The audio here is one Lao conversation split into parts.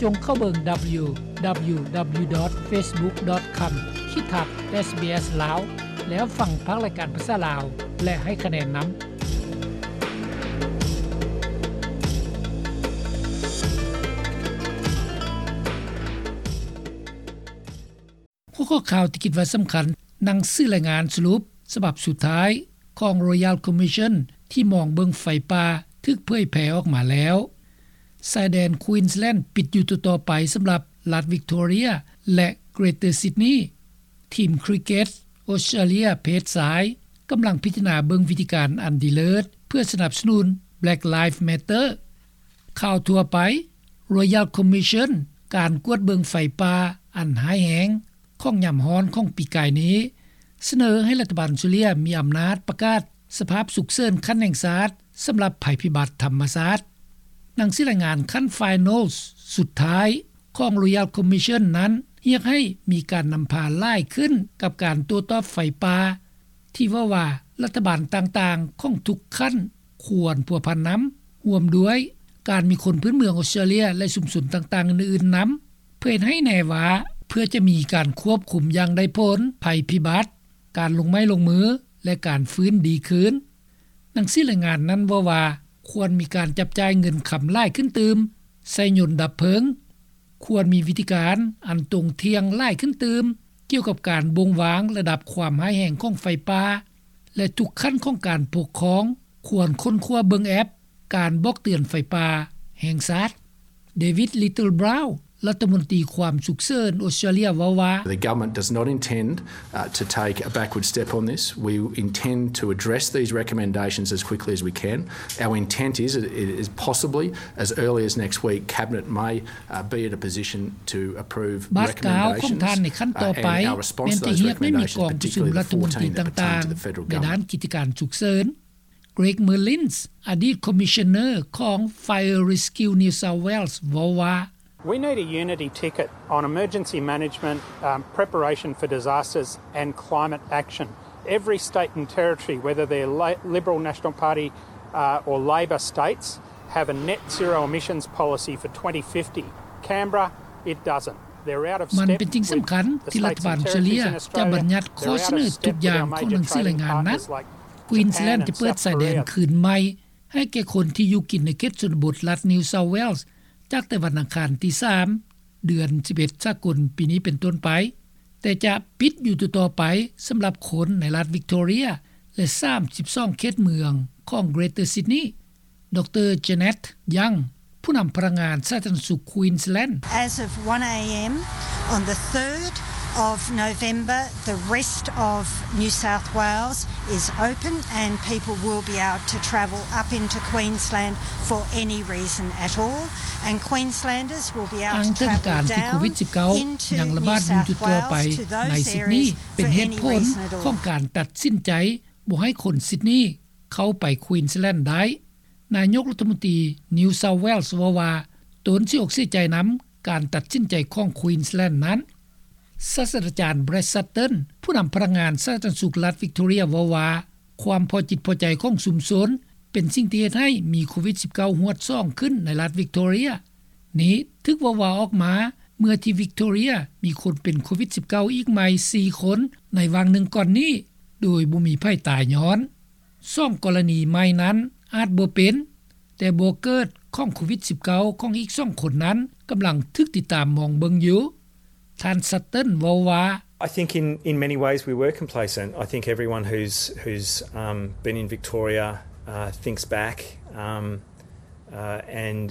ສົ່ງເຂົ້າເບິ່ງ www.facebook.com/sbs ລາວ ແລ້ວຟັງພາກລາຍການພາສາລາວ ແລະ ໃຫ້ຄະແນນນຳ. ຫົວຂໍ້ຂ່າວທີ່ຄິດວ່າສຳຄັນ, ໜັງສືລາຍງານສະຫຼຸບສະບັບສຸດທ້າຍຂອງ Royal Commission ທີ່ມອງເບິ່ງໄຟປ່າຖືກເຜີຍແຜ່ອອກມາແລ້ວ. ຊາຍແດນ Queensland ປິດຢູ່ຕໍ່ໆໄປສຳລັບລັດ Victoria ແລະ Greater Sydney. ທີມຄຣິກເກັດ Australia ເພດຊາຍ ກຳລັງພິຈາລະນາເບິ່ງວິທີການອັນດີເລີດ ເພື່ອສະໜັບສະໜູນ Black Lives Matter. ຂ່າວທົ່ວໄປ, Royal Commission ການກວດເບິ່ງໄຟປ່າອັນຮ້າຍແຮງຂອງຍາມຮ້ອນຂອງປີກາຍນີ້ ສະເໜີໃຫ້ລັດຖະບານອອສເຕຣເລັຽມີອຳນາດປະກາດສະພາບສຸກເສີນຂັ້ນແຫ່ງຊາດ ສຳລັບໄພພິບັດທຳມະຊາດ. ໜັງສືລາຍງານຂັ້ນ Finals ສຸດທ້າຍຂອງ Royal Commission ນັ້ນ ຮຽກໃຫ້ມີການນຳພາຫຼາຍຂຶ້ນກັບການໂຕ້ຕອບໄຟປ່າ ທີ່ເວົ້າວ່າລັດຖະບານຕ່າງໆຂອງທຸກຂັ້ນຄວນພົວພັນນຳ, ຮ່ວມດ້ວຍການມີຄົນພື້ນເມືອງອອສເຕຣເລັຽ ແລະ ຊຸມຊົນຕ່າງໆອື່ນໆນຳ ເພື່ອເຮັດໃຫ້ແນ່ວ່າ ເພື່ອຈະມີການຄວບຄຸມຢ່າງໄດ້ຜົນໄພພິບັດ, ການລົງໄມ້ລົງມື ແລະ ການຟື້ນດີຄືນ. ໜັງສືລາຍງານນັ້ນເວົ້າວ່າ ຄວນມີການຈັບຈ່າຍເງິນຄຳຫຼາຍຂຶ້ນຕື່ມໃສ່ຍົນດັບເພີງ, ຄວນມີວິທີການອັນຕົງທ່ຽງຫຼາຍຂຶ້ນຕື່ມ ກ່ຽວກັບການບົ່ງວາງລະດັບຄວາມຮ້າຍແຮງຂອງໄຟປ່າ ແລະ ທຸກຂັ້ນຂອງການປົກຄອງຄວນຄົ້ນຄວ້າເບິ່ງແອັບການບອກເຕືອນໄຟປ່າແຫ່ງຊາດ. David Littleproud ລັດຖະມົນຕີຄວາມສຸກເສີນອອສເຕຣເລັຽເວົ້າວ່າ The government does not intend, uh, to take a backward step on this. We intend to address these recommendations as quickly as we can. Our intent is, is possibly as early as next week, Cabinet may, uh, be in a position to approverecommendations, ບາດກ້າວຂອງທ່ານໃນຂັ້ນຕໍ່ໄປ ແມ່ນຈະຮຽກໃຫ້ມີກອງປະຊຸມລັດຖະມົນຕີຕ່າງໆໃນດ້ານກິດຈະການສຸກເສີນ. Greg Merlins ອະດີດ Commissioner ຂອງ Fire Rescue New South Wales ເວົ້າວ່າ We need a unity ticket on emergency management, um, preparation for disasters and climate action. Every state and territory, whether they're La-, Liberal National Party, uh, or Labor states, have a net zero emissions policy for twenty fifty. Canberra, it doesn't. They're out of step with the states and territories in Australia. ມັນເປັນສິ່ງສຳຄັນທີ່ລັດຖະບານອອສເຕຣເລັຽຈະບັນຍັດຂໍ້ສະເນີທຸກຢ່າງຂອງໜັງສືລາຍງານນັ້ນ. Queensland ຈະເປີດຊາຍແດນຄືນໃໝ່ໃຫ້ແກ່ຄົນທີ່ຢູ່ກິນໃນເຂດຊົນນະບົດລັດ New South Wales ຈາກແຕ່ວັນອັງຄານທີສາມ ເດືອນສິບເອັດສາກົນປີນີ້ເປັນຕົ້ນໄປ, ແຕ່ຈະປິດຢູ່ຕໍ່ໆໄປສຳລັບຄົນໃນລັດ Victoria ແລະ ສາມສິບສອງເຂດເມືອງຂອງ Greater Sydney. ດຣ Janet Young ຜູ້ນຳພະນັກງານສາທາລະນະສຸກ Queensland. As of one a.m. on the third of November, the rest of New South Wales is open and people will be able to travel up into Queensland for any reason at all, and Queenslanders will be able to travel down into New South Wales to those areas for any reason at all. ອ້າງເຖິງການທີ່ໂຄວິດສິບເກົ້າຍັງລະບາດຢູ່ທົ່ວໆໄປໃນຊິດນີ ເປັນເຫດຜົນຂອງການຕັດສິນໃຈບໍ່ໃຫ້ຄົນຊິດນີ ເຂົ້າໄປ Queensland ໄດ້. ນາຍົກລັດຖະມົນຕີ New South Wales ເວົ້າວ່າ ຕົນເສຍອົກເສຍໃຈນຳການຕັດສິນໃຈຂອງ Queensland ນັ້ນ. ສາດສະດາຈານ Brad Sutton ຜູ້ນຳພະນັກງານສາທາລະນະສຸກລັດ Victoria ເວົ້າວ່າ ຄວາມພໍຈິດພໍໃຈຂອງຊຸມຊົນເປັນສິ່ງທີ່ເຮັດໃຫ້ມີໂຄວິດສິບເກົ້າ ຮວດສອງຂຶ້ນໃນລັດ Victoria. ນີ້ຖືກເວົ້າວ່າອອກມາເມື່ອທີ່ Victoria ມີຄົນເປັນໂຄວິດສິບເກົ້າ ອີກໃໝ່ສີ່ຄົນໃນຫວ່າງໜຶ່ງກ່ອນນີ້ ໂດຍບໍ່ມີໃຜຕາຍຍ້ອນ. ສອງກໍລະນີໃໝ່ນັ້ນອາດບໍ່ເປັນ, ແຕ່ບໍ່ເກີດຂອງໂຄວິດສິບເກົ້າ ຂອງອີກສອງຄົນນັ້ນກຳລັງຖືກຕິດຕາມມອງເບິ່ງຢູ່. ທ່ານ Sutton ເວົ້າວ່າ I think in, in many ways we were complacent. I think everyone who's, who's, um, been in Victoria, uh, thinks back, um, uh, and,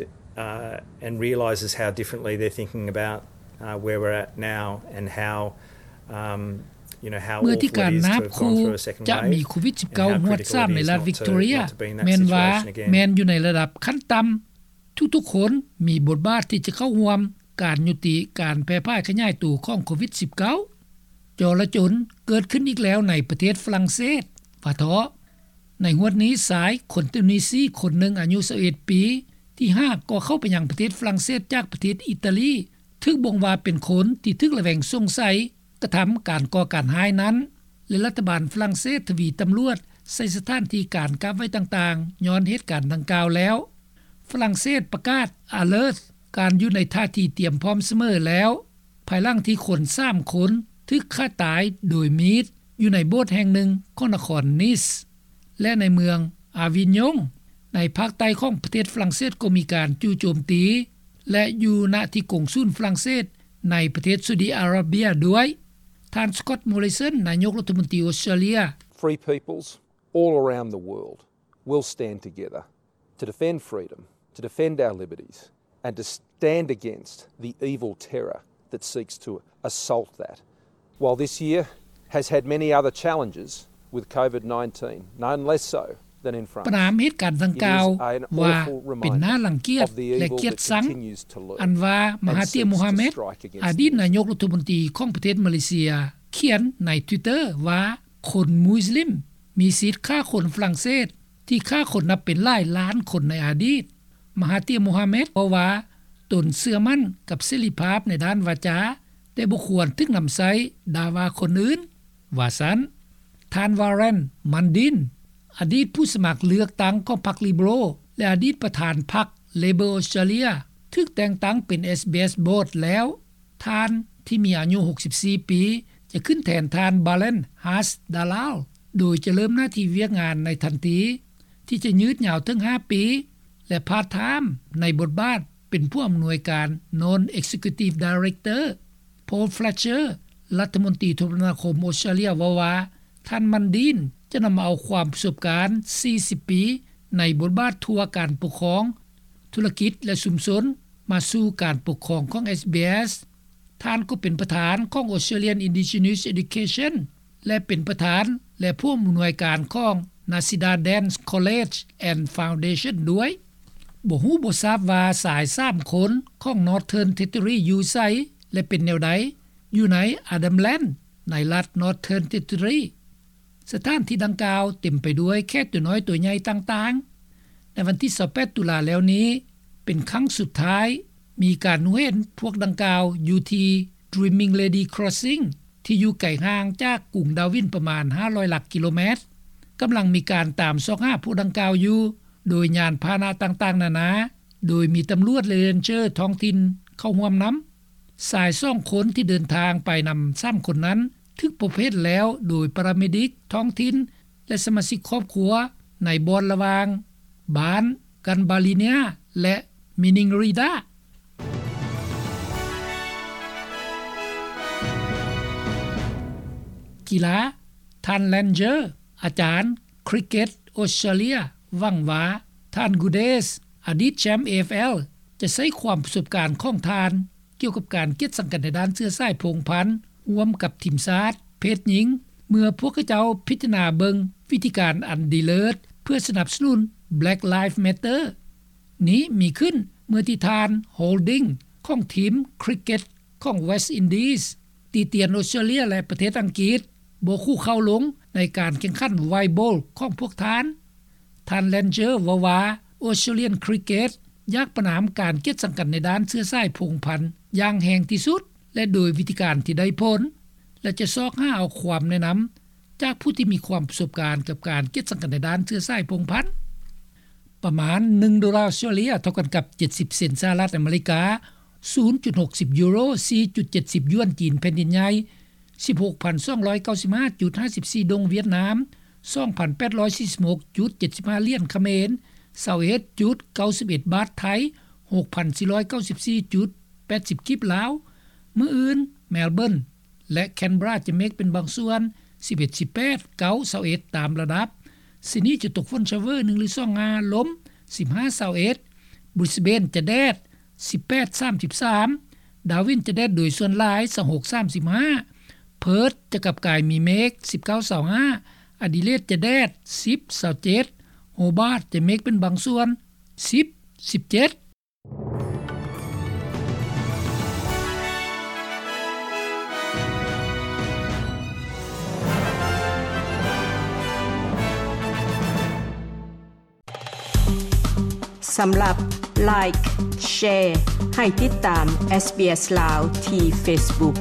uh, and realises how differently they're thinking about, uh, where we're at now and how, um, ເມື່ອທີ່ການນາບຄູ່ຈະມີໂຄວິດສິບເກົ້າ ຮວດສາມໃນລັດ Victoria ແມ່ນວ່າແມ່ນຢູ່ໃນລະດັບຂັ້ນຕ່ຳ, ທຸກໆຄົນມີບົດບາດທີ່ຈະເຂົ້າຮ່ວມການຍຸຕິການແຜ່ພາຍຂະຫຍາຍໂຕຂອງໂຄວິດສິບເກົ້າ. ຈໍລະຈົນເກີດຂຶ້ນອີກແລ້ວໃນປະເທດຝຣັ່ງເສດ ວ່າເທາະ. ໃນຫວດນີ້ ຊາຍຄົນຕູນິຊີຄົນໜຶ່ງອາຍຸຊາວເອັດປີ ທີ່ຫາກໍເຂົ້າໄປຍັງປະເທດຝຣັ່ງເສດຈາກປະເທດອີຕາລີ ຖືກບົ່ງວ່າເປັນຄົນທີ່ຖືກລະແວງສົງໄສ ກະທຳການກໍ່ການຮ້າຍນັ້ນ ແລະ ລັດຖະບານຝຣັ່ງເສດທະວີຕຳຫຼວດໃສ່ສະຖານທີ່ການກັກໄວ້ຕ່າງໆ ຍ້ອນເຫດການດັ່ງກ່າວແລ້ວ. ຝຣັ່ງເສດປະກາດ Alert ການຢູ່ໃນທ່າທີຕຽມພ້ອມສະເໝີແລ້ວ ພາຍຫຼັງທີ່ຄົນສາມຄົນຖືກຂ້າຕາຍໂດຍມີດຢູ່ໃນໂບດແຫ່ງໜຶ່ງຂອງນະຄອນ Nice ແລະໃນເມືອງ Avignon ໃນພາກໃຕ້ຂອງປະເທດຝຣັ່ງເສດ ກໍມີການຈູ່ໂຈມຕີ ແລະຢູ່ນະທີ່ກົງສູນຝຣັ່ງເສດໃນປະເທດຊາອຸດີອາຣາເບຍດ້ວຍ. ທ່ານ Scott Morrison ນາຍົກລັດຖະມົນຕີອອສເຕຣເລັຽ Free peoples all around the world will stand together to defend freedom, to defend our liberties, and to stand against the evil terror that seeks to assault that. While this year has had many other challenges with COVID nineteen, none less so than in France, ປະນາມເຫດການດັ່ງກ່າວວ່າເປັນໜ້າລັງກຽດ ແລະກຽດຊັງ ອັນວ່າມະຫາເຕຍ ໂມຮາເມັດ ອະດີດນາຍົກລັດຖະມົນຕີຂອງປະເທດມາເລເຊຍ ຂຽນໃນ Twitter ວ່າ ຄົນມຸສລິມມີສິດຂ້າຄົນຝຣັ່ງເສດ ທີ່ຂ້າຄົນນັບເປັນຫຼາຍລ້ານຄົນໃນອະດີດ. ມະຫາເຕຍ ໂມຮາເມັດ ເວົ້າວ່າ ຕົນເຊື່ອໝັ້ນກັບເສລີພາບໃນດ້ານວາຈາ ແຕ່ບໍ່ຄວນຖືກນຳໃຊ້ດ່າວ່າຄົນອື່ນ ວ່າຊັ້ນ. ທ່ານ Warren Mundine ອະດີດຜູ້ສະໝັກເລືອກຕັ້ງຂອງພັກ Liberal ແລະອະດີດປະທານພັກ Labor Australia ຖືກແຕ່ງຕັ້ງເປັນ SBS Board ແລ້ວ. ທ່ານທີ່ມີອາຍຸຫົກສິບສີ່ປີ ຈະຂຶ້ນແທນທ່ານ Balen Haas Dalal ໂດຍຈະເລີ່ມໜ້າທີ່ວຽກງານໃນທັນທີ ທີ່ຈະຍືດຍາວເຖິງຫ້າປີ ແລະ part-time ໃນບົດບາດເປັນຜູ້ອຳນວຍການ Non-Executive Director. Paul Fletcher ລັດຖະມົນຕີໂທລະນາຄົມອອສເຕຣເລັຽ ເວົ້າວ່າ ທ່ານ Mundine ຈະນຳເອົາຄວາມປະສົບການສີ່ສິບປີໃນບົດບາດທົ່ວການປົກຄອງ, ທຸລະກິດ ແລະ ຊຸມຊົນ ມາສູ່ການປົກຄອງຂອງ SBS. ທ່ານກໍເປັນປະທານຂອງ Australian Indigenous Education ແລະ ເປັນປະທານ ແລະ ຜູ້ອຳນວຍການຂອງ Nasidadan College and Foundation ດ້ວຍ. ບໍ່ຮູ້ບໍ່ຊາບວ່າຊາຍສາມຄົນຂອງ Northern Territory ຢູ່ໃສ ແລະ ເປັນແນວໃດ ຢູ່ໃນ Arnhem Land ໃນລັດ Northern Territory. ສະຖານທີ່ດັ່ງກ່າວເຕັມໄປດ້ວຍແຂກຕົວນ້ອຍຕົວໃຫຍ່ຕ່າງໆ. ໃນວັນທີຊາວແປດຕຸລາແລ້ວນີ້ ເປັນຄັ້ງສຸດທ້າຍ ມີການຮູ້ເຫັນພວກດັ່ງກ່າວຢູ່ທີ່ Dreaming Lady Crossing ທີ່ຢູ່ໄກຫ່າງຈາກກຸງດາວິນປະມານຫ້າຮ້ອຍຫຼັກກິໂລແມັດ. ກຳລັງມີການຕາມຊອກຫາພວກດັ່ງກ່າວຢູ່ ໂດຍຍານພາຫະນະຕ່າງໆນານາ, ໂດຍມີຕຳຫຼວດ ແລະ ເຣນເຈີທ້ອງຖິ່ນເຂົ້າຮ່ວມນຳ. ຊາຍສອງຄົນທີ່ເດີນທາງໄປນຳສາມຄົນນັ້ນ ຖືກພົບເຫັນແລ້ວໂດຍປາຣາເມດິກທ້ອງຖິ່ນ ແລະ ສະມາຊິກຄອບຄົວໃນບ່ອນລະຫວ່າງບ້ານ Gambaleena ແລະ Maningrida. ກິລາ, ທ່ານ Langer ອາຈານຄຣິກເກັດອອສເຕຣເລັຽ ຫວັງວ່າ ທ່ານ Guterres ອະດີດແຊ້ມ AFL ຈະໃຊ້ຄວາມປະສົບການຂອງທ່ານ ກ່ຽວກັບການກຽດສັງກັນໃນດ້ານເຊື້ອສາຍພົງພັນ ຮ່ວມກັບທີມຊາດເພດຍິງ ເມື່ອພວກເຂົາເຈົ້າພິຈາລະນາເບິ່ງວິທີການອັນດີເລີດ ເພື່ອສະໜັບສະໜູນ Black Lives Matter. ນີ້ມີຂຶ້ນເມື່ອທີ່ທ່ານ Holding ຂອງທີມຄຣິກເກັດຂອງ West Indies ຕິຕຽນອອສເຕຣເລັຽ ແລະ ປະເທດອັງກິດ ບໍ່ຄູ່ເຂົ້າລົງໃນການແຂ່ງຂັນ White Ball ຂອງພວກທ່ານ. ທ່ານ Langer ເວົ້າວ່າ Australian Cricket ຢາກປະນາມການກຽດສັງກັນໃນດ້ານເຊື້ອສາຍພົງພັນຢ່າງແຮງທີ່ສຸດ ແລະ ໂດຍວິທີການທີ່ໄດ້ຜົນ ແລະ ຈະຊອກຫາເອົາຄວາມແນະນຳຈາກຜູ້ທີ່ມີຄວາມປະສົບການກັບການກຽດສັງກັນໃນດ້ານເຊື້ອສາຍພົງພັນ. ປະມານໜຶ່ງໂດລາອອສເຕຣເລັຽ ເທົ່າກັນກັບເຈັດສິບເຊັນສະຫະລັດອາເມລິກາ, ສູນຈຸດຫົກສິບຢູໂຣ, ສີ່ຈຸດເຈັດສິບຢວນຈີນແຜ່ນດິນໃຫຍ່, ສິບຫົກພັນສອງຮ້ອຍເກົ້າສິບຫ້າຈຸດຫ້າສິບສີ່ດົງຫວຽດນາມ, ສອງພັນແປດຮ້ອຍສີ່ສິບຫົກຈຸດເຈັດສິບຫ້າຫຼຽນຂະເໝນ, ຊາວເອັດຈຸດເກົ້າສິບເອັດບາດໄທ, ຫົກພັນສີ່ຮ້ອຍເກົ້າສິບສີ່ຈຸດແປດສິບກີບລາວ. ມື້ອື່ນ Melbourne ແລະ Canberra ຈະເມກເປັນບາງສ່ວນ ສິບເອັດ ສິບແປດ ເກົ້າ ຊາວເອັດ ຕາມລະດັບ. Sydney ຈະຕົກຝົນຊາວເວີໜຶ່ງຫຼືສອງງາ ລົມ ສິບຫ້າ ຊາວເອັດ. Brisbane ຈະແດດ ສິບແປດ ສາມສິບສາມ. Darwin ຈະແດດໂດຍສ່ວນຫຼາຍ ຊາວຫົກ ສາມສິບຫ້າ. Perth ຈະກັບກາຍມີເມກ ສິບເກົ້າ ຊາວຫ້າ. Adelaide ຈະແດດ ສິບ ຊາວເຈັດ. Hobart ຈະເມກເປັນບາງສ່ວນ ສິບ ສິບເຈັດ. ສຳລັບ Like, Share ໃຫ້ຕິດຕາມ SBS ລາວ ທີ່ Facebook.